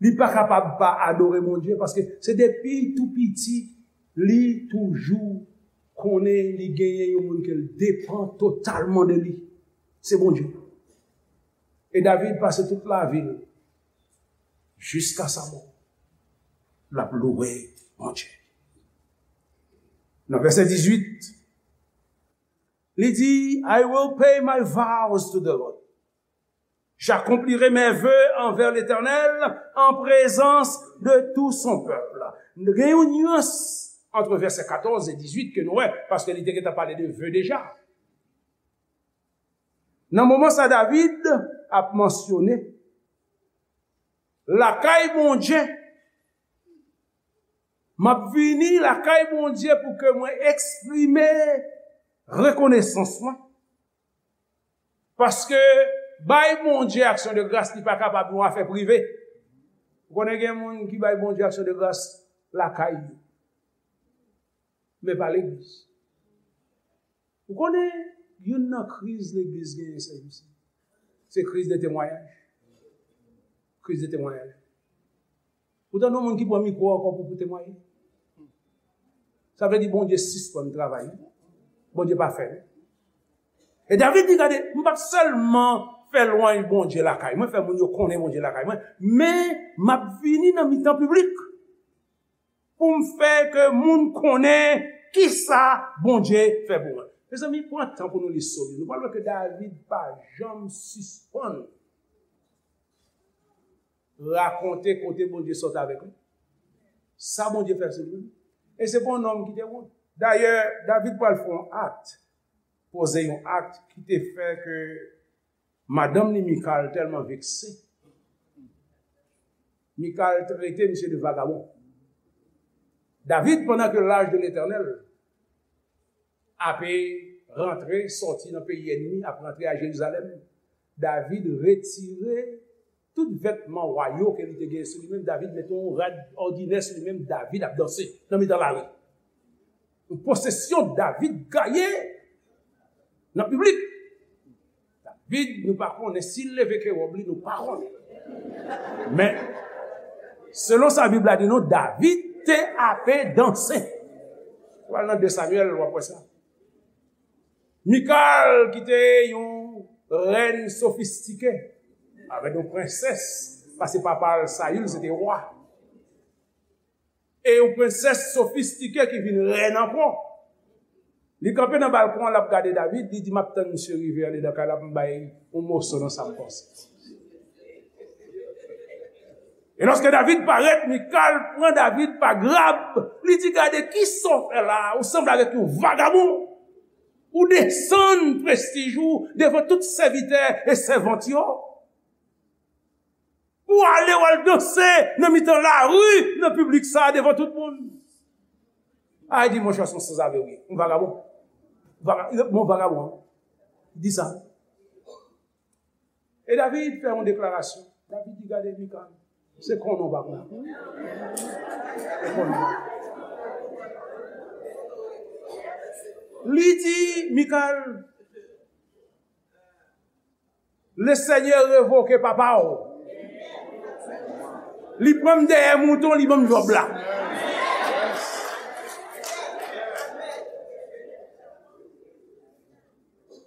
Li pa kapab pa adore Bondye, paske se depi tou piti, li toujou konnen li genyen yon moun ke l depann totalman de li. Se Bondye. E David pase tout lavi l, jiska sa mò, l ap louwe Bondye. Nan vèsè dizuit, li di, "I will pay my vows to the Lord. J'accomplirai mes vœux envers l'Éternel en présence de tout son peuple." Gen yon nyans ant vèsè katòz e dizuit ke nou wè, paske li te gentan pale de ve deja. Nan moman sa, David ap mansyone lakay Bondye. "M ap vini lakay Bondye pou ke mwen eksprime rekonesans mwen." Paske bay Bondye aksyon de gras, li pa kapab yon afè prive. Ou konnen gen moun ki bay Bondye aksyon de gras lakay yo, men pa legliz. Ou konnen youn nan kriz legliz genyen sèvis, se kriz de temwayaj. Kriz de temwayaj. Ou tande yon moun ki pran mikwo ankò pou, pou temwaye? Sa vle di Bondye sispann travay. Bondye pa fè l. E David di, "Gade, m p ap sèlman fè lwanj Bondye lakay mwen, fè moun yo konnen Bondye lakay mwen, men m ap vini nan mitan piblik pou m fè ke moun konnen kisa Bondye fè pou mwen." Mezanmi, pran tan pou nou li Sòm yo. Nou pral wè ke David pa janm sispann rakonte kote Bondye sot avèk li, sa Bondye fè sou li. E se pa yon nonm ki te wont. Dayè, David pral fè yon akt, poze yon akt ki te fè ke madanm li Mikal tèlman vekse. Mikal trete misye de vagabon. David, pandan ke l'âge de l'Éternel ape rantre, sòti nan peyi ènmi, ap rantre a Jerizalèm, David retire tout vètman wa yo ke li te gen sou li menm. David mete yon rad òdinè sou li menm. David ap danse nan mitan lari. Yon posesyon David gaye nan piblik. David, nou pa konnen si l leve ke wòb li, nou pa konnen. Men, selon sa Bib la di nou, David te ape danse. Ou al nan de Samyèl, w ap wè sa. Mikal, ki te yon rèn sofistike, avèk yon prensès, paske papa l, Sayil, se te wa. E yon prensès sofistike ki vin rèn ankò. Li kanpe nan balkon an, l ap gade David, li di, "M ap tann misye rive andedan kay la pou m bay yon moso nan sa m panse." E lòske David parèt, Mikal pran David pa grab, li di, "Gade, kisa w fè la a? Ou sanble avèk yon vagabon. Ou desann prestij ou devan tout sèvitè e sèvant yo. Pou w ale, w al danse nan mitan lari, nan piblik sa a, devan tout moun." A, li di, "Monchè, se yon sanzave w ye. Yon vagabon. Vaga-, bon, vagabon. Di sa." E David fè yon deklarasyon. David di, "Gade, Mikal, se konnen w pa konnen. Se konnen w pa konnen." Li di, Mikal, "Le Senyè revoke papa w. Li pran m dèyè mouton, li ban m wòb la."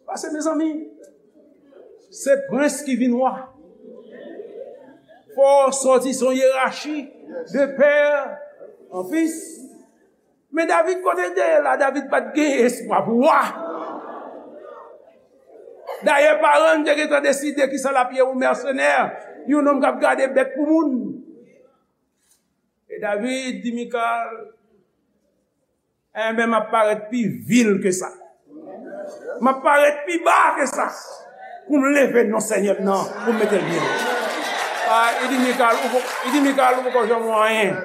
Paske, mezanmi, se prens ki vin wa. Fò w sòti, se yon yerachi de pè an fis. Men David, kote l te ye la, David pa t gen espwa pou wa. Dayè, paran l te gentan deside kisa l ap ye, yon mèsenè, yon nonm k ap gade bèt pou moun. E David di Mikal, "Enben, m ap parèt pi vil ke sa. M ap parèt pi ba ke sa. Pou m leve non Senyè m nan, pou m mete l byen wo." A, li di Mikal, ou po-, li di Mikal, "Ou poko janm wè anyen."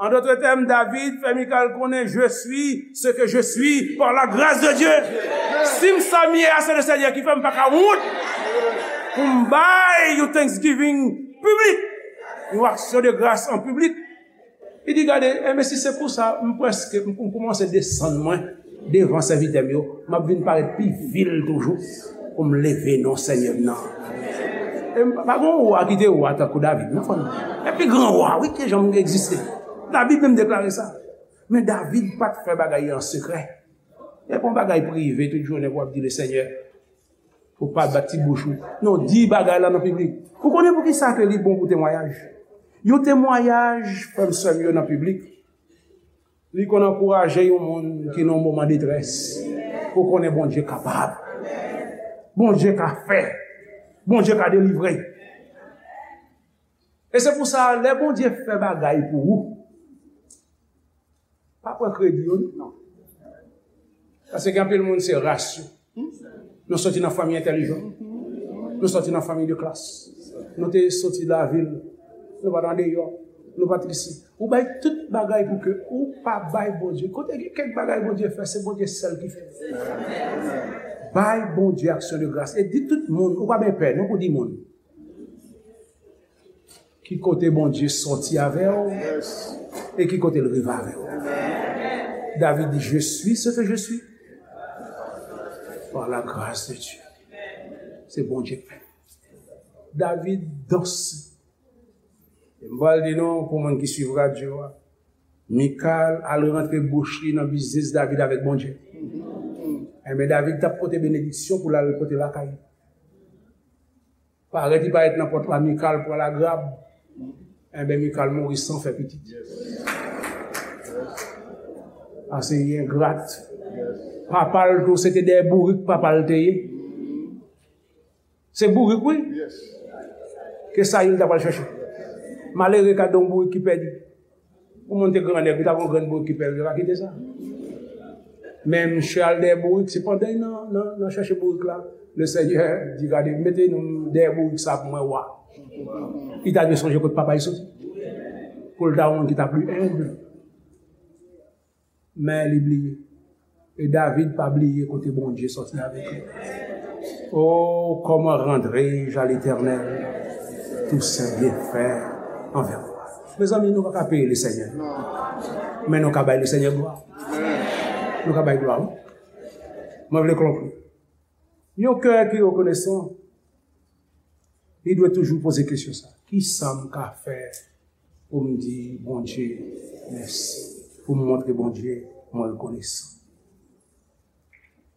En d'autres termes, David fè Mikal konnen, je suis ce que je suis par la grâce de Dieu. Si m sa m ye a, se le Seigneur ki fè m, pa ka wont pou m bay yon thanksgiving piblik, yon aksyon de gras an piblik. Li di, gade, enben si se pou sa, m prèske, m, m kòmanse desann mwen devan sèvitè m yo, m ap vin parèt pi vil toujou pou m leve non Senyè m nan. E m pa, pa gen yon wa ki te wa tankou David, non, frè m. E pi gran wa, wi, ki janm egziste. Labib menm deklare sa. Men David pa t fè bagay an sekrè. E pa yon bagay prive tout jounen pou w ap di le Senyè. Ou pa bat ti bouch ou. Non, di bagay la nan piblik. Ou konnen poukisa ke li bon pou temwayaj? Yon temwayaj, frè m, sè m yo, nan piblik, li konn ankouraje yon moun ki nan yon moman detrès. Ou konnen Bondye kapab. Bondye ka fè. Bondye ka delivre. E se pou sa, lè Bondye fè bagay pou ou, pa pran kredi yo, non. Paske gen anpil moun, se ras yo. Nou soti nan fanmi entèlijan. Nou soti nan fanmi de klas. Nou te soti lavil. Nou pa t andeyò. Nou pa t isi. Ou bay tout bagay pou ke ou pa bay Bondye. Kote gen kèk bagay Bondye fè, se Bondye sèl ki fè. Bay Bondye aksyon de gras. E di tout moun, ou pa byen pè, non, pou di moun. Ki kote Bondye sòti avè w e ki kote l rive avè w. David di, je suis ce que je suis par la grâce de Dieu. Se Bondye k fè. David danse. E m pral di nou, pou moun ki swiv radyo a, Mikal al rantre bouch li nan biznis David avèk Bondye. Enben, David t ap pote benediksyon pou l al pote lakay. Parèt, li parèt nan pòt la, Mikal pran lagrab. Enben, Mikal mouri san fè pitit. Ase li engrat. Papa l tou, se te dèyè bourik papa l te ye. Se bourik, wi. Ke sa li ta pral chèche. Malere ka don bourik ki pèdi. Yon moun te grannèg, li ta gon grenn bourik ki pèdi, li pa kite sa. Men misye al dèyè bourik, se pandan li nan, nan, nan chèche bourik la, le Senyè di, gade, mete nou dèyè bourik sa pou mwen, wa. Li ta dwe sonje kot papa li soti. Pou l ta yon moun ki ta pli enb. Men li bliye. E David pa bliye kote Bondye sòti avèk li. Oh, comment rendrai-je à l'Éternel tous ses bienfaits envers moi? Mezanmi, nou pa ka peye Lesenyè. Men nou ka bay Lesenyè glwa. Nou ka bay glwa, wi. Mwen vle konkli. Yon kè ki rekonesan, li dwe toujou poze kesyon sa. Kisa m ka fè pou m di Bondye mèsi? Pou m montre Bondye mwen rekonesan.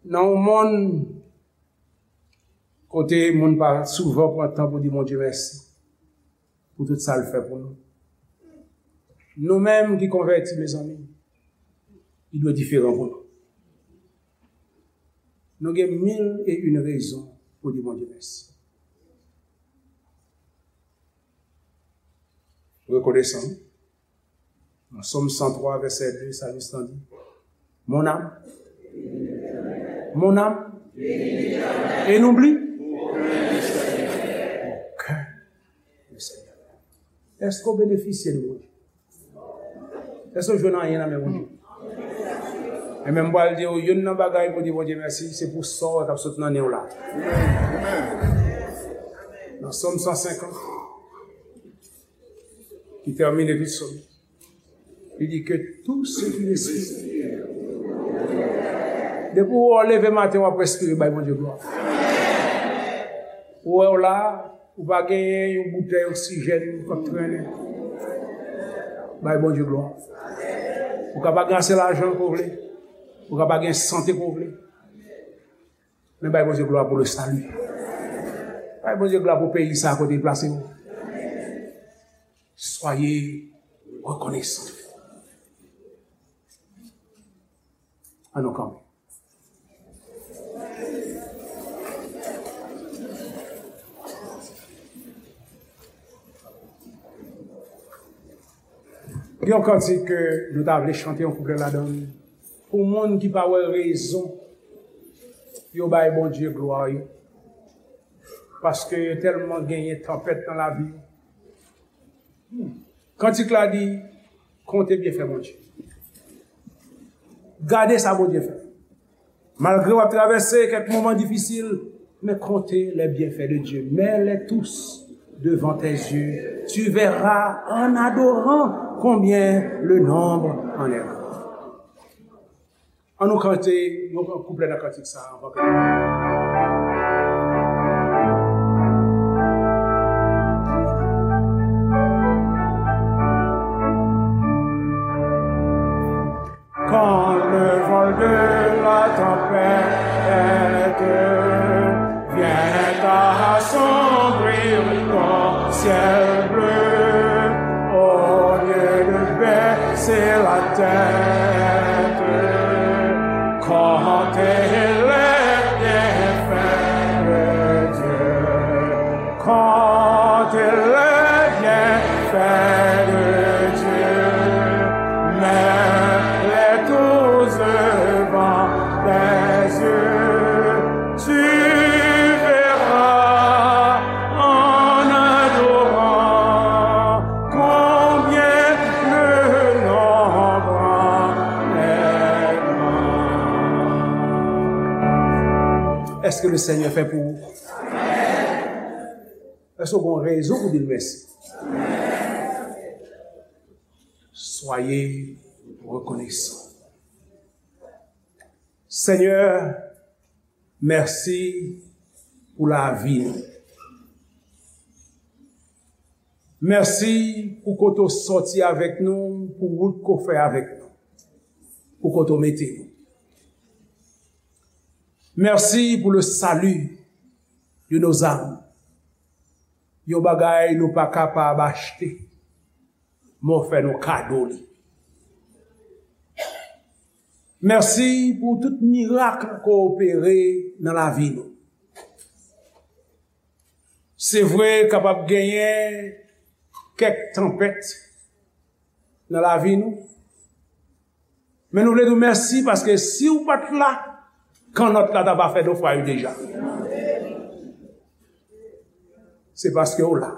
Nan yon monn kote moun pa souvan pran tan pou di Bondye mèsi pou tout sa l fè pou nou. Nou menm ki konvèti, mezanmi, li dwe diferan pou nou. Nou gen mil e yon rezon pou di Bondye mèsi. Rekonesan. Nan Sòm san twa, vèsè de, salmis lan di, mon âme, mon âme, et n'oublie aucun de ses bienfaits. Èske w benefisye de Bondye? Èske w jwenn anyen nan men Bondye? E menm pral di w, youn nan bagay pou di Bondye mèsi, se pou sa w wè k ap sot nan nen w la. Nan Sòm san senkant, ki tèmine tout Sòm, li di ke tout ce qui respire. Depi w leve maten, w ap respire, bay Bondye glwa. Ou wè w la, ou pa genyen yon boutèy oksijèn k ap trennen. Bay Bondye glwa. Ou ka pa gen ase lajan ke w vle. Ou ka pa gen sante ke w vle. Men bay Bondye glwa pou le salut. Bay Bondye glwa pou peyi sa kote l plase w. Soyez reconnaissants. Ann nou kanpe. Gen yon kantik ke nou ta vle chante yon kouplè ladan l. Pou moun ki pa wè rezon yo bay Bondye glwa yo. Paske yo tèlman genyen tanpèt nan lavi yo. Kantik la di, Konte byenfè Bondye. Gade sa Bondye fè. Malgre w ap travèse kèk moman difisil, men konte les bienfaits de Dieu. Mets-les tous devant tes yeux. Tu verras en adorant combien le nombre en est grand. An nou kante yon kouplè nan kantik sa a anvan ke nou Quand le vol de la tempête vient assombrir ton ciel bleu, au lieu de baisser la tête, comptez les bienfaits de Dieu. Comptez les bienfaits de Dieu, mets-les tous devant tes yeux. Tu verras en adorant combien le nombre est grand. Èske le Senyè fè pou ou? Èske w gen rezon pou di l mèsi? Soyez reconnaissants. Senyè, mèsi pou lavi nou. Mèsi pou kote w sòti avèk nou, pou wout ke w fè avèk nou, pou kote w mete nou. Mèsi pou le salut de nos âmes. Yon bagay nou pa kapab achte, men w fè nou kado li. Mèsi pou tout mirak ke w opere nan lavi nou. Se vre, kapab genyen kèk tanpèt nan lavi nou, men nou vle di w mèsi paske si w pa t la, kannòt la ta va fè nofraj deja. Se paske w la.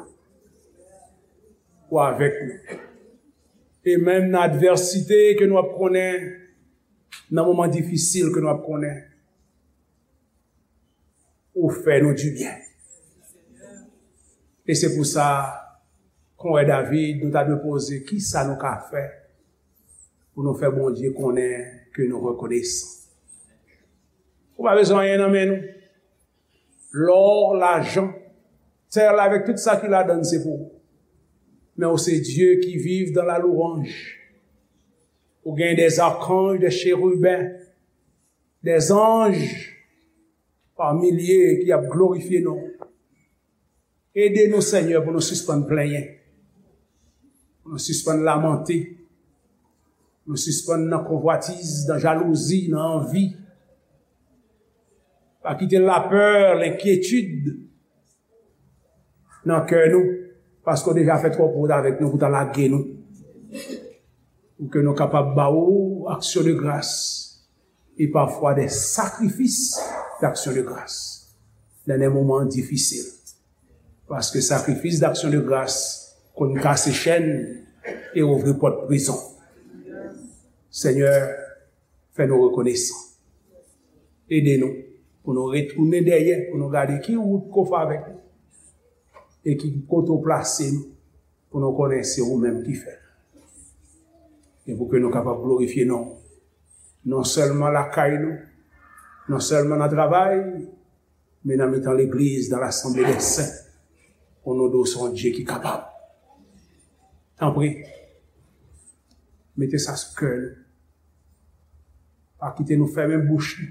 Ou avèk nou. E menm nan advèsite ke nou ap konnen, nan moman difisil ke nou ap konnen, ou fè nou dibyen. E se pou sa, kon wè David, nou ta dwe poze, kisa nou ka fè pou nou fè Bondye konnen ke nou rekonesan? Ou pa bezwen anyen nan men nou. Lò, lajan, tè la avèk tout sa ki ladan l se pou ou. Men ou se Dye ki viv dans la louange. Ou gen des archanges, des chérubins, des anges par milliers ki ap glorifye non w. Ede nou, Senyè, pou nou sispann plenyen, pou nou sispann lamante, pou nou sispann nan konvwatiz, nan jalouzi, nan anvi. Pa kite lapè, lenkyetid nan kè nou, paske w deja fè twòp wout avèk nou pou w ta lage nou. Pou ke nou kapab ba ou aksyon de gras e pafwa de sakrifis d'aksyon de gras nan de moman difisil. Paske sakrifis d'aksyon de gras konn kase chèn e ouvri pòt prizon. Senyè, fè nou rekonesan. Ede nou pou nou retounen dèyè, pou nou gade ki wout ke w fè avèk nou e ki kote w plase nou, pou nou konnen se ou menm ki fè l. E pou ke nou kapab glorifye non w, non sèlman lakay nou, non sèlman nan travay, men nan mitan legliz, dans l'assemblée des saints, pou nou di w se yon Dye ki kapab. Tanpri, mete sa sou kè nou. Pa kite nou fèmen bouch nou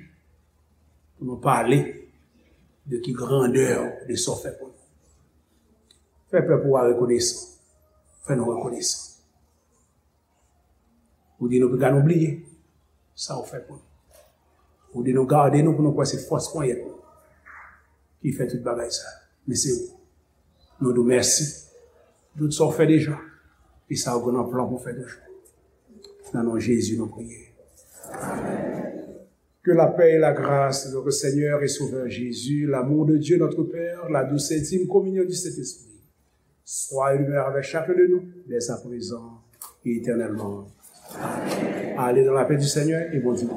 pou nou pale de ki grandè de sa w fè pou nou. Fè pèp ou a rekonesan. Fè nou rekonesan. Ou di nou piga nou bliye sa w fè pou nou. Ou di nou gade nou pou nou kwè se fòs ponyèt nou ki fè tout bagay sa. Men se ou. Nou di w mèsi. Tout sa w fè deja. E sa w gen nan plan pou w fè toujou. Nan non Jezi nou priye. Que la paix et la grâce de notre Seigneur et Sauveur Jésus, l'amour de Dieu notre Père, la douce et intime communion du Saint-Esprit, soit et demeure avec chacun de nous, dès à présent et éternellement. Allez dans la paix du Seigneur et bon dimanche.